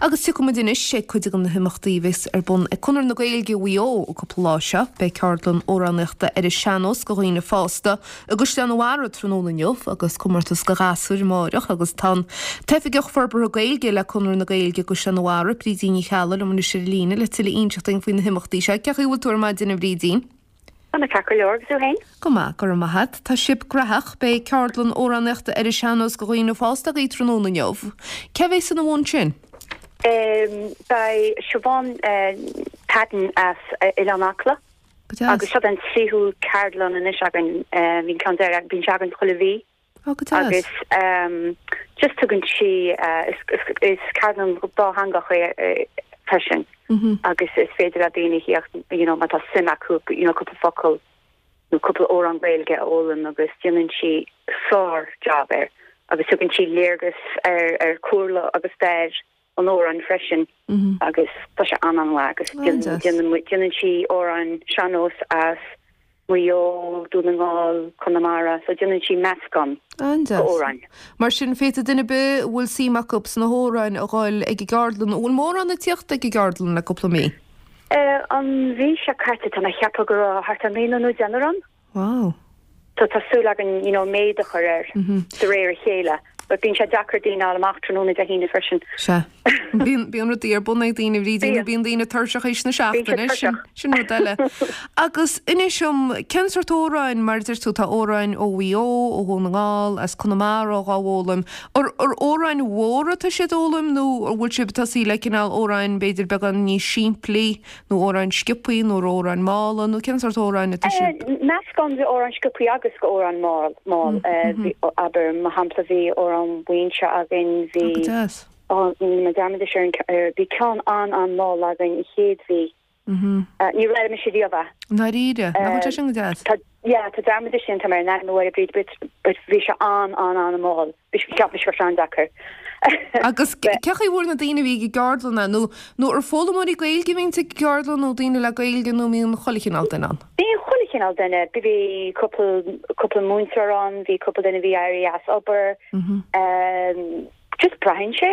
Agus tiocfaidh muid anois ag cuid de na himeachtaí a bheas ar bun ag Conradh na Gaeilge Mhaigh Eo an cúpla lá seo. Beidh ceardlann amhránaíochta ar an sean-nós do dhaoine fásta i gCaisleán an Bharraigh tráthnóna inniu agus comórtas do ghasúir amáireach agus tá an tOifigeach Forbartha Gaeilge le Conradh na Gaeilge i gCaisleán an Bharraigh, Brídín Ní Cheallaigh, liom anois ar an líne le tuilleadh a inseacht dúinn faoi na himeachtaí seo. Cén chaoi a bhfuil tú ar maidin a Bhrídín? Tá mé ceart go leor, agus tú féin? Go maith, go raibh maith a't. Tá sibh graitheach. Beidh ceardlann amhránaíochta ar an sean-nós do dhaoine fásta agaibh tráthnóna inniu. Cé bhéas ina bhun sin? Beidh Siobhán Padden as Oileán Acla. Go deas. Agus seo an tríú ceardlann anois againn. Bhí an ceann deireadh, bíonn sé againn chuile mhí. Ó, go deas. Agus just tugann sí, is ceardlann dátheangach é freisin agus is féidir le daoine theacht, you know, má tá suim acu, you know, cúpla focal nó cúpla amhrán Gaeilge a fhoghlaim agus déanann sí sár job air agus tugann sí léargas ar ar chúlra agus stair an amhráin freisin agus tá sé an-an-mhaith agus déanann sí amhráin sean-nós as Maigh Eo, Dún na nGall, Conamara, so déanann sí meascán d'amhráin. Mar sin, féadfaidh duine ar bith a bhfuil suim acu sna hamhráin a dhul ag an gceardlann. An bhfuil mórán ag tíocht ag an gceardlann le cúpla mí? An mhí seo caite tá mé ag ceapadh go raibh thart ar naonúr nó deichniúr ann. Wow. So tá súil againn you know méid a chur air de réir a chéile but bíonn sé deacair daoine a fháil amach tráthnóna Dé hAoine freisin. Sea. Bíonn, bíonn rudaí ar bun ag daoine, a Bhrídín, nó bíonn daoine tuirseach théis na seachtaine, sin, sin rud eile. Agus inis dom, cén sórt amhráin, mar a deir tú, tá amhráin ó Mhaigh Eo, ó Dhún na nGall, as Conamara dhá bhfoghlaim. Ar, ar amhráin mhóra atá siad a fhoghlaim nó an bhfuil sibh ag tosaí le cineál amhráin b'fhéidir beagán níos simplí? Nó amhráin sciobthaí nó amhráin mhalla nó cén sórt amhráin atá sibh? Meascán de amhráin sciobthaí agus de amhráin mall. Abair, mar shampla, bhí amhrán Mhuinseo againn, bhí, Go deas. rinne mé dearmad anois ar an, bhí ceann an-an-mhall againn an chéad mhí. Níor fhoghlaim mise riamh é. I ndáiríre? Nach bhfuil sé sin go deas? Tá, yeah, tá dearmad anois déanta agam ar an ainm, a Mháire Bríd, but bhí sé an-an-an-mhall. Bhí sé, cheap mise go raibh sé an-deacair. Agus cén chaoi a bhfuair na daoine a bhí ag an gceardlann é? Nó, nó ar foghlaimeoirí Gaeilge a bhíonns ag an gceardlann nó daoine le Gaeilge nó an mbíonn chuile chineál duine ann? Bíonn chuile chineál duine. Bhí cúpla, cúpla múinteoir ann, bhí cúpla duine a bhí éirithe as obair. Just braitheann sé.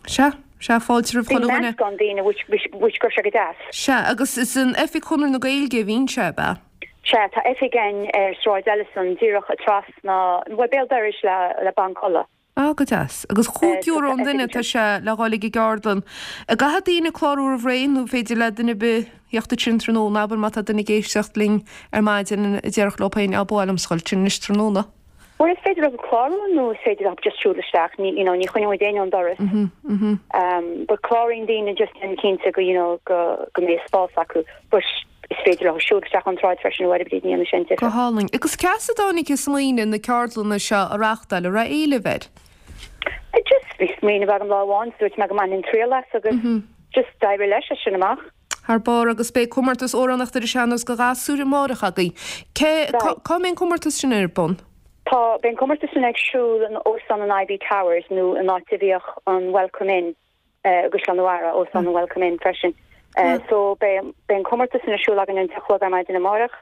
Sea, sea, fáilte roimh chuile dhuine. Bíonn meascán daoine which, which, which go raibh sé go deas. Sea, agus is in oifig Chonradh na Gaeilge a bhíonn sé, ab ea? Sea, tá oifig againn ar Sráid Ellison, díreach trasna, bhuel, béal dorais le, le Banc Uladh. Ah, go deas. Agus €5 an duine atá sé le dhul ag an gceardlann. An gcaithfidh daoine clárú roimh ré nó féidir le duine ar bith theacht ansin tráthnóna, abair má tá duine ag éisteacht linn ar maidin a déarfadh leo féin, á, ba mhaith liomsa dhul ansin anois tráthnóna. Bhuel, is féidir leo clárú nó is féidir leo just siúl isteach, ní, you know, ní choinneoidh muid éinne ón doras. But cláraíonn daoine just déanamh cinnte go, you know, go, go mbeidh spás acu. But is féidir leo siúl isteach ón tsráid freisin, a Mháire Bríd, ní dhéanfaidh sé aon difear. Go hálainn. Agus cá as a dtáinig an smaoineamh na ceardlanna seo a reáchtáil, an raibh éileamh air? Just bhí smaoineamh agam lá amháin, dúirt mé go mbainfinn triail as agus just d'éirigh leis as sin amach. Thar barr agus beidh comórtas amhránaíochta ar an sean-nós do ghasúir amárach agaibh. Cé, cá, cá mbeidh an comórtas sin ar bun? Tá, beidh an comórtas sin ag siúl in Óstán an Iveagh Towers nó an áit a bhíodh an Welcome Inn i gCaisleán an Bharraigh, Óstán an Welcome Inn freisin. So beidh, beidh an comórtas sin ar siúl againn an 10 a chlog ar maidin amárach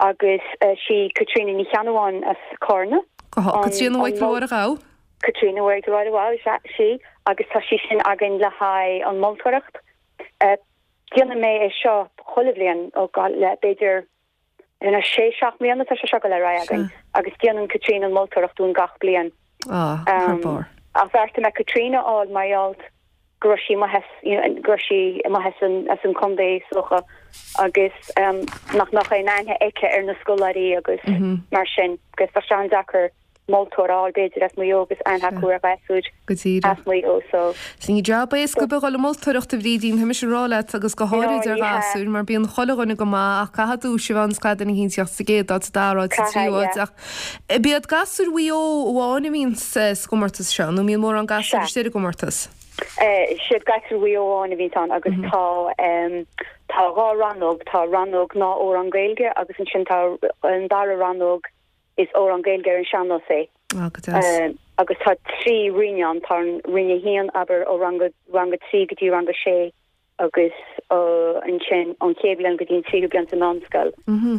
agus sí Caitríona Ní Cheannabháin as Cárna. Go há, Caitríona Mhichael Mháire Ghabh. Caitríona Mhichael Mháire Ghabh, is ea, sí agus tá sí sin againn le haghaidh an moltóireacht. Déanann mé é seo chuile bhliain ó le b'fhéidir you know sé seacht mbliana tá sé seo ag dul ar aghaidh againn agus déanann Caitríona an moltóireacht dúinn gach bliain. Ah, thar barr. Ach bheartaigh mé Caitríona a fháil mar gheall go raibh sí amuigh as you know go raibh sí amuigh as an as an contae is dócha agus nach mbeadh aon aithne aici ar na scoláirí agus mar sin agus tá sé an-deacair moltóir a fháil b'fhéidir as Maigh Eo agus aithne acu ar ghasúir Go díreach. as Maigh Eo so. Sea, ní jab éasca ar bith a dhul ag moltóireacht a Bhrídín, tá mise ag rá leat agus go háirid ar ghasúir mar bíonn chuile dhuine go maith ach caithfidh duais a bheith ann is caithfidh duine éicint tíocht sa gcéad áit, sa dara háit, sa tríú Caithfidh, háit yeah. ach ab iad gasúir Mhaigh Eo amháin a bhíonn sa gcomórtas seo nó an mbíonn mórán gasúir Sea. istigh ar an gcomórtas? Siad gasúir Mhaigh Eo amháin a bhíonn ann agus tá tá dhá rannóg, tá rannóg gnáth-amhrán Gaeilge agus ansin tá an dara rannóg Is amhrán Gaeilge ar an sean-nós é. Ah, go deas. Agus tá 3 roinn ann, tá an roinn 1, abair, ó rang a, rang a 3 go dtí rang a 6 agus ansin ón chéad bhliain go dtí an tríú bliain sa mheánscoil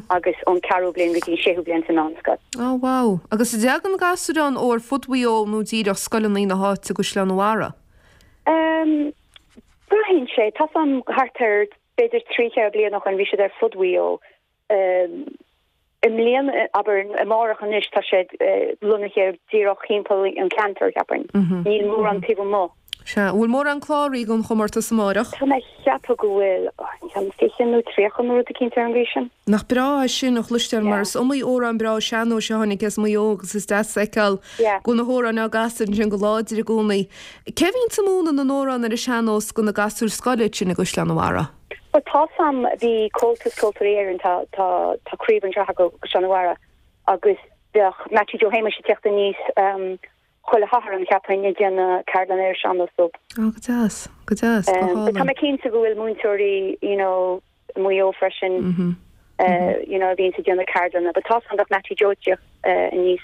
agus ón ceathrú bliain go dtí an séú bliain sa mheánscoil. Ah, wow. Agus an dtagann gasúir ann ó ar fud Mhaigh Eo nó díreach scoileanna na háite i gCaisleán an Bharraigh? Um. sé, tá 's a'm thart ar b'fhéidir 3, 4 bliana ó shoin bhí siad ar fud Mhaigh Eo. I mbliana, abair, amárach anois, tá siad lonnaithe díreach thimpeall an cheantair, cheapfainn. Níl mórán taobh amuigh. Sea. An bhfuil mórán cláraithe don chomórtas amárach? Tá mé ag ceapadh go bhfuil, ceann 20 nó 30 nó rud eicínt ar an gcaoi sin. Nach breá é sin a chloisteáil mar is iomaí amhrán breá sean-nóis a tháinig as Maigh Eo agus is deas a fheiceáil go bhfuil na hamhráin á gcasadh ansin go láidir i gcónaí. Cé a bhíonns ag múineadh na n-amhrán ar an sean-nós do na gasúir scoile ansin i gCaisleán an Bharraigh? Bhuel tá 's a'm, bhí Comhaltas Ceoltóirí Éireann, tá, tá, tá craobh anseo acu i gCaisleán an Bharraigh agus bheadh Mattie Joe Shéamuis ag teacht aníos chuile Shatharn, cheapfainn, ag déanamh ceardlann ar an sean-nós dóibh. Ó, go deas, go deas, go hálainn. Tá mé cinnte go bhfuil múinteoirí, you know, i Maigh Eo freisin, you know, a bhíonns ag déanamh ceardlanna, but tá 's a'm bheadh Mattie Joe ag teacht aníos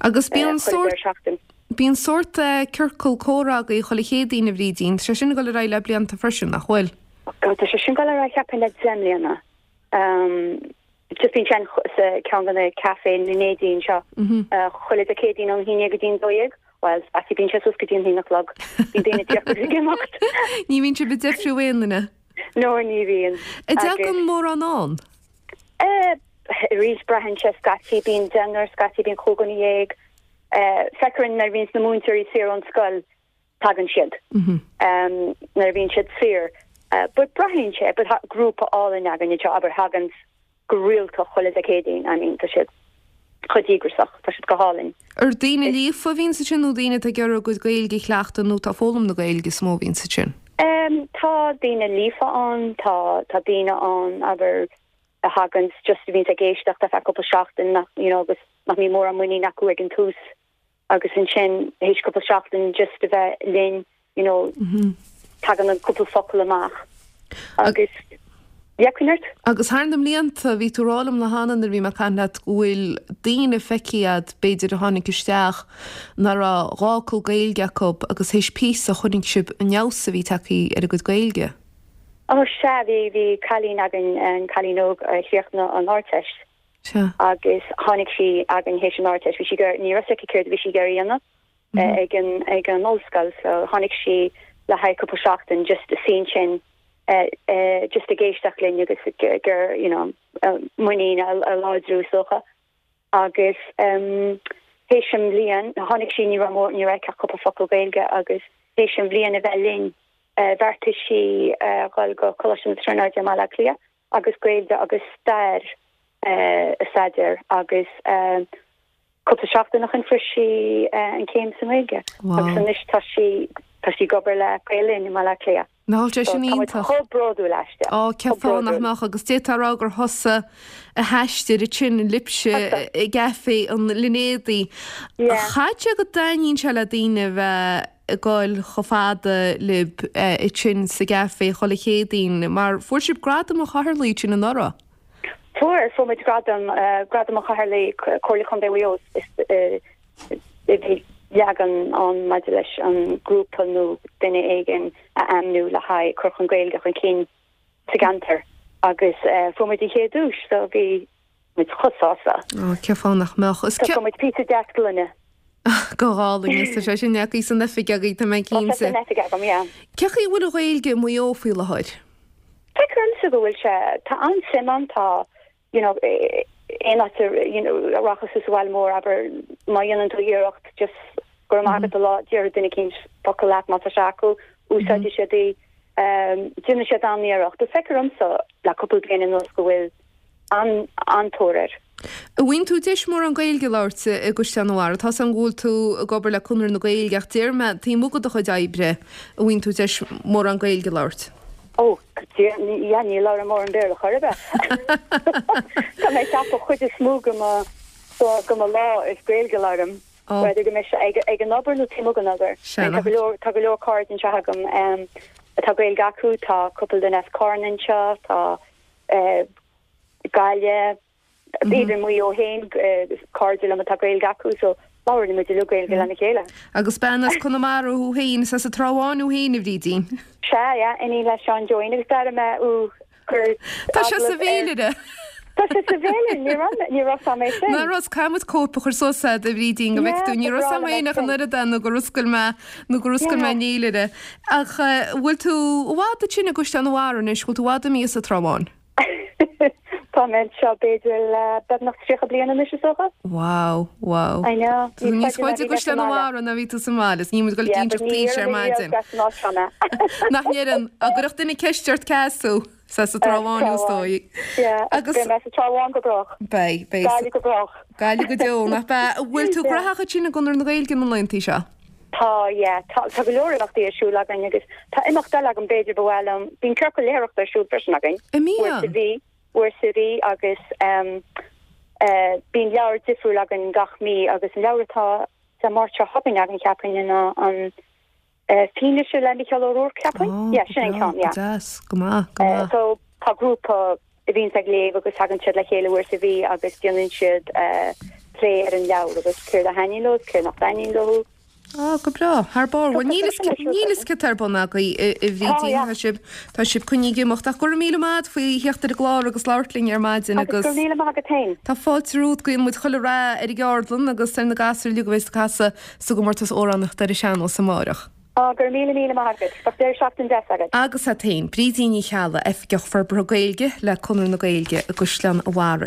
Agus bíonn sórt, bíonn sórt ciorcal comhrá agaibh chuile Chéadaoin, a Bhrídín, tá sé sin ag dul ar aghaidh le blianta freisin, nach bhfuil? Oh God, tá sé sin ag dul ar aghaidh cheapfainn le 10 mbliana. Just bíonn sé sa ceann de na café na Neidín seo chuile Dé Céadaoin ón 11 go dtí an 12. Bhuel, scaití bíonn sé suas go dtí an haon a chlog. Bíonn daoine ag tíocht agus ag imeacht. Ní bhíonn sibh ag deifriú aon duine? No, ní bhíonn. An dtagann mórán ann? Arís, braitheann sé scaití bíonn deichniúr, scaití bíonn 15 dhuine. Feictear nuair a bhíonns na múinteoirí saor ón scoil, tagann siad. Nuair a bhíonn siad saor. But braitheann sé, but tá grúpa álainn againn anseo, abair, thaganns go rialta chuile Dé Céadaoin, I mean, tá siad chomh díograsach, tá siad go hálainn. Ar daoine líofa a bhíonns ansin nó daoine atá ag iarraidh a gcuid Gaeilge a chleachtadh nó atá ag foghlaim na Gaeilge is mó a bhíonns ansin? Tá daoine líofa ann, tá, tá daoine ann, abair, a thaganns just a bhíonns ag éisteacht ar feadh cúpla seachtain nach, you know, agus nach mbíonn mórán muinín acu ag an tús agus ansin théis cúpla seachtain just a bheith linn, you know, tagann an cúpla focal amach agus yeah, coinnigh ort. Agus thar na mblianta, bhí tú ag rá liom lá cheana nuair a bhí mé ag caint leat go bhfuil daoine feicthe agat b'fhéidir a tháinig isteach nach raibh dhá fhocal Gaeilge acu agus théis píosa chonaic sibh an fheabhas a bhí tagtha ar a gcuid Gaeilge. Ó sea, bhí, bhí cailín againn, an cailín óg a chríochnaigh an Ardteist. Sea. Agus tháinig sí againn théis an Ardteist, bhí sí ag iarraidh, ní raibh 's aici céard a bhí sí ag iarraidh a dhéanamh ag an, ag an ollscoil so tháinig sí le haghaidh cúpla seachtain just a suí ansin just ag éisteacht linn agus ag iarraidh, you know, muinín a, a láidriú is dócha. Agus théis an bhliain, tháinig sí, ní raibh mór, ní raibh aici ach cúpla focal Gaeilge agus théis an bhliain a bheith linn, bheartaigh sí dhul go Coláiste na Tríonóide i mBaile Átha Cliath agus Gaeilge agus stair a staidéar agus cúpla seachtain ó shin fuair sí an chéim sa nGaeilge agus anois tá sí tá sí ag obair le Gael Linn i mBaile Átha Cliath. Nach bhfuil sé sin iontach? Tá muid chomh bródúil aisti. Á, cén fáth nach mbeadh agus d'fhéadfá a rá gur thusa a d'aistrigh ansin libhse i gCaifé an Línéadaigh. Caithfidh sé go dtaitníonn sé le daoine a bheith ag goil chomh fada libh ansin sa gcaifé chuile Chéadaoin, mar fuair sibh Gradam an Chathaoirligh ansin anuraidh. Fuair, fuair muid gradam, Gradam an Chathaoirligh, Comhairle Contae Mhaigh Eo, is bhí leagan ann maidir leis an grúpa nó duine éigin a ainmniú le haghaidh cur chun Gaeilge chun cinn sa gceantar agus fuair muid an chéad duais so bhí muid chomh sásta. Ó, cén fáth nach mbeadh? Is cé. Fuair muid píosa deas gloine. Go hálainn, is tá sé sin agaibh san oifig agaibh, tá mé cinnte. Tá sé san oifig agam, yeah. Cé chaoi a bhfuil an Ghaeilge i Maigh Eo faoi láthair? Feictear domsa go bhfuil sé, tá an-suim ann, tá, you know, aon áit a, you know, a rachas tú sa bhaile mór, abair, má dhéanann tú iarracht just go raibh maith agat a rá, déarfaidh duine eicínt focal leat má tá sé acu, úsáidfidh siad í, déanann siad an-iarracht. Feictear domsa le cúpla bliain anuas go bhfuil an-tóir air. An bhfaigheann tú deis mórán Gaeilge a labhairt i gCaisleán an Bharraigh? Tá's agam go bhfuil tú ag obair le Conradh na Gaeilge ach déarfaidh mé taobh amuigh de do chuid oibre, an bhfaigheann tú deis mórán Gaeilge a labhairt? Ó, yeah, ní labhraím mórán Béarla chor ar bith. Tá mé ag ceapadh chuid is mó de mo, de mo lá is Gaeilge a labhraím. Whether go mbeidh sé ag, ag an obair nó taobh amuigh den obair. Tá go leor, tá go leor cairde anseo agam atá Gaeilge acu, tá cúpla duine as Carna anseo, tá Gaillimh, even Maigh Eo féin, cairde liom atá Gaeilge acu, so labhrann muid uilig Gaeilge lena chéile. Agus bean as Conamara thú féin, is as an Trá Bháin thú féin, a Bhrídín. Sea, yeah, iníon le Seán Joeín agus d'airigh mé thú ag cur Tá sé sa bhféilire! Tá sé sa bhféilire, ní raibh mé, ní raibh 's a'm é sin. Ná raibh, caithfidh muid cóip a chur suas a'd, a Bhrídín, go bhfeicfidh tú, ní raibh 's a'm féin ach an oiread é nó gur oscail mé, nó gur oscail mé an fhéilire. Ach bhfuil tú i bhfad ansin i gCaisleán an Bharraigh anois, bhfuil tú i bhfad imithe as an Trá Bháin? Tá mé anseo b'fhéidir le beagnach 30 bliain anois is dócha. Wow, wow. I know. Tá tú níos faide i gCaisleán an Bharraigh ná bhí tú sa mbaile, is níl muid ag dul ag inseacht aois ar maidin. Nach ndeireann, dá gcuirfeadh duine ceist ort cá as thú, is as an Trá Bháin is dóigh. Yeah, agus beidh mé sa Trá Bháin go brách. Beidh, beidh. Gaillimh go brách. Gaillimh go deo, nach ea? Bhfuil tú graitheach ansin i gConradh na Gaeilge na laethanta seo? Tá, yeah. Tá, tá go leor imeachtaí ar siúl againn agus tá imeacht eile agam b'fhéidir ba mhaith liom. Bíonn ciorcal léitheoireachta ar siúl freisin againn. An mbíonn? Uair sa mhí, uair sa mhí agus ehm eh bíonn leabhar difriúil againn gach mí agus an leabhar atá Dé Máirt seo chugainn againn cheapfainn ná an eh Fianaise le Micheál Ó Ruairc cheapfainn? Oh, Yeah, sin an go breá, ceann, yeah. go deas, go maith, go Eh maith. so tá grúpa a bhíonns ag léamh agus tagann siad le chéile uair sa mhí agus déanann siad plé ar an leabhar agus céard a thaitníonn leo is céard nach dtaitníonn leo. Á, go breá. Thar barr. Bhuel, níl fhios céard tá ar bun agaibh, a Bhrídín. Tá sibh, tá sibh coinnithe ag imeacht. Ach go raibh míle maith agat faoi theacht ar an gclár agus labhairt linn ar maidin Agus go raibh míle maith agat féin. Tá fáilte romhat. Guíonn muid chuile rath ar an gceardlann agus ar na gasúir uilig a bheas ag casadh sa gcomórtas amhránaíochta ar an sean-nós amáireach. Á, go raibh míle míle maith agat. Bheadh deireadh seachtaine deas agat. Agus agat féin. Brídín Ní Cheallaigh, Oifigeach Forbartha Gaeilge le Conradh na Gaeilge i gCaisleán an Bharraigh.